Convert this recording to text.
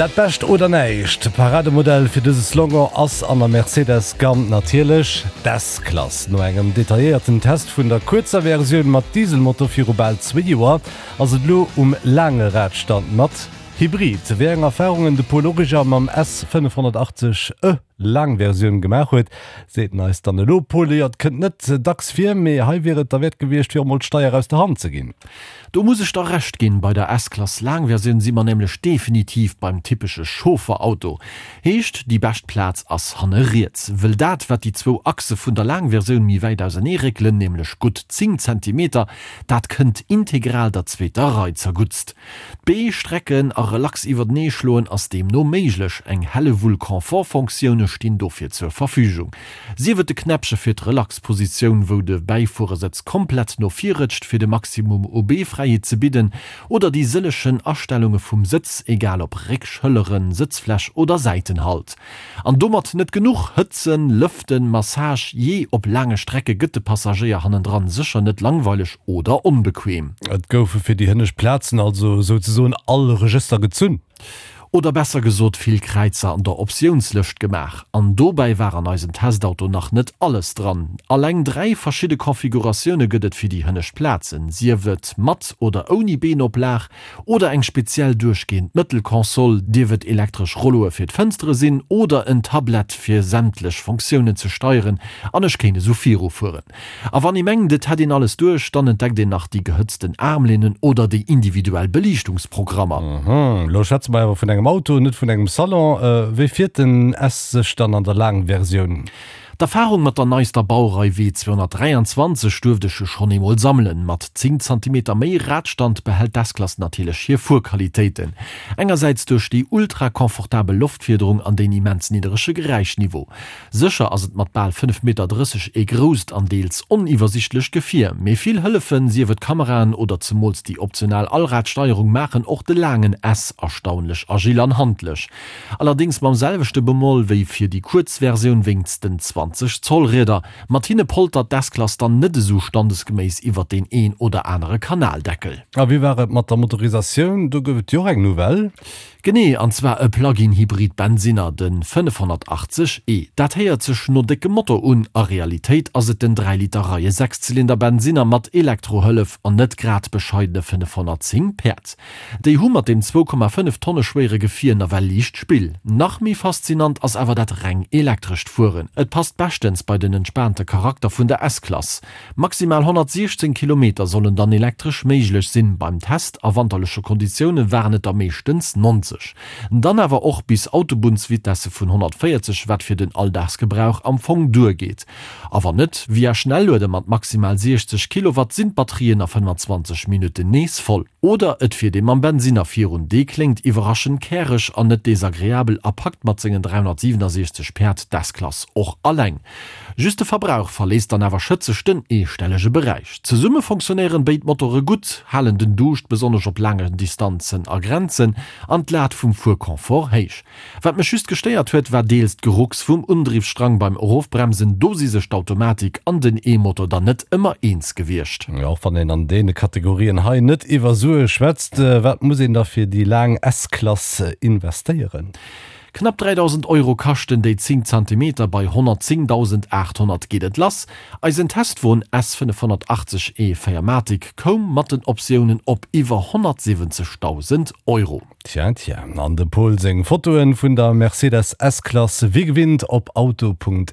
Dat Bescht oder näischt, Parademodell fir dëse Slogan ass an der Mercedes-Gamm natierlech d'S-Klass. No engem detailléierten Test vun der kuerzer Versioun mat Dieselmotor viru bal zwéi Joer, ass et elo um laange Radstand mat Hybrid. Wéi eng Erfarungen de Paul Origer mam S 580 e Laang Versioun gemaach huet, seet en eis dann elo. Paul, jo, et kënnt net dacks vir, mee hei wier et derwäert gewiescht, fir och mol d'Steier aus der Hand ze ginn. Do muss ech der Recht ginn, bei der S-Klass Laangversioun si mer nämlech definitiv beim typesche Chaufferauto. Heescht, déi bescht Plaz ass hanne riets. Wëll dat, wat déi zwou Achse vun der Laangversioun méi wäit ausernee réckelen, nämlech gutt 10 Zentimeter, dat kënnt integral der zweeter Rei zerguttst. D'Bee strecken a relax iwwertenee schloen ass deemno méiglech. Eng Hellewull Confort-Fonctioune stinn dofir zur Verfügung. Sief et de Knäppche fir d'Relax-Positioun, wou de Bäifuerersëtz komplett no vir rëtscht fir de Maximum u Beefräiheet ze bidden, oder déi sëllechen Astellunge vum Sëtz, egal ob Réck, Schëlleren, Sëtzfläch oder Säitenhalt. An domat net genuch, Hëtzen, Lëften, Massage, jee, op laange Strecke gëtt de Passagéier hannendran sécher net langweileg oder onbequem. Et goufe fir déi hënnescht Plazen also souzesoen all Regëster gezunn. Oder besser gesot vill Kräizer an der Optiounslëscht gemaach. An dobäi war an eisem Testauto nach net alles dran. Alleng 3 verschidde Configuratioune gëtt et fir déi hënnescht Plazen, sief et mat oder ouni Beenoplag, Oder eng speziell duerchgehend Mëttelkonsol, dierf et elektresch Rolloe fir d'Fënstere sinn oder en Tablett fir sämtlech Fonctiounen ze steieren, an ech kéint esou virufueren. A wann ee mengt et hätt een alles duerch, dann entdeckt een nach déi gehëtzten Armlehnen oder déi individuell Beliichtungsprogrammer. Elo schwätze mer awer vun engem Auto, net vun engem Salon. Wéi fiert den S sech dann an der Laangversioun? D'Erfarung mat der neister Baurei W 223 duerft ech jo schonn eemol sammelen. Mat 10 Zantimeter méi Radstand behält d'S-Klass natierlech hir Fuerqualitéiten. Engersäits duerch déi ultra confortabel Loftfiederung an deen immens nidderege Geräischniveau. Sécher ass et mat bal 5 Meter 30 ee grousst an deels oniwwersichtlecht Gefier, mee vill Hëllefen, sief et Kameraen oder zemools déi optional Allradsteierung maachen och de laangen S erstaunlech agil an handlech. Allerdéngs mam selwechte Bemoll wéi fir déi kuerz Versioun wéinst den 20 Zoll Rieder. Mat hinne poltert d'S-Klass dann net esou standesgeméiss iwwert deen een oder anere Kanaldeckel. A wéi war et mat der Motorisatioun? Do gouf et jo och eng Nouvelle. Genee, an zwar e Plug-in-Hybrid Bensinner, de 580 e. Dat héiert sech no déckem Motor un, a Realitéit ass et den 3 Liter Reie-Sechszylinder Bensinner mat Elektrohëllef an net grad bescheidene 510 Päerd. Déi hu mat deem 2,5 Tonne schwéiere Gefier nawell liicht Spill. Nach méi faszinant ass awer dat reng elektrescht Fueren. Et passt beschtens bei den entspaante Charakter vun der S-Klass. Maximal 116 Kilometer sollen dann elektresch méiglech sinn, beim Test a wanterleche Konditioune waren et der meeschtens 90. Dann awer och bis Autobunnsvitesse vun 140, wat fir den Alldagsgebrauch am Fong duergeet. A wann net, via Schnelluede mat maximal 60 Kilowatt sinn d'Batterien a 25 Minutten nees voll. Oder et fiert ee mam Bensinner virun, dee kléngt iwwerraschend käreg an net desagreabel a packt mat sengen 367 Päerd d'S-Klass och alleng. Just de Verbrauch verléisst dann awer schëtzeg den eestellege Beräich. Zesumme fonctionnéieren béid Motore gutt, halen den Duuscht besonnesch op laangen Distanzen a Grenzen an d'Lat vum Fuerconfort héich. Wat mech just gestéiert huet, war deels d'Gerucks vum Undriffsstrang beim Erofbremsen. Do si sech d'Automatik an den E-Motor dann net ëmmer eens gewiescht. Och wann een an deene Kategorien hei net iwwer Sue schwätzt, wat muss een da fir déi laang S-Klass investéieren? Knapp 3.000 Euro kaschten déi 10 Zantimeter, bei 110.800 geet et lass. Eisen Testwon S 580 e 4 Matic koum mat den Optiounen op iwwer 170.000 Euro. Tja, tja, an dem Pol seng Fotoen vun der Mercedes S-Klass wéi gewinnt op auto.rtl.lu.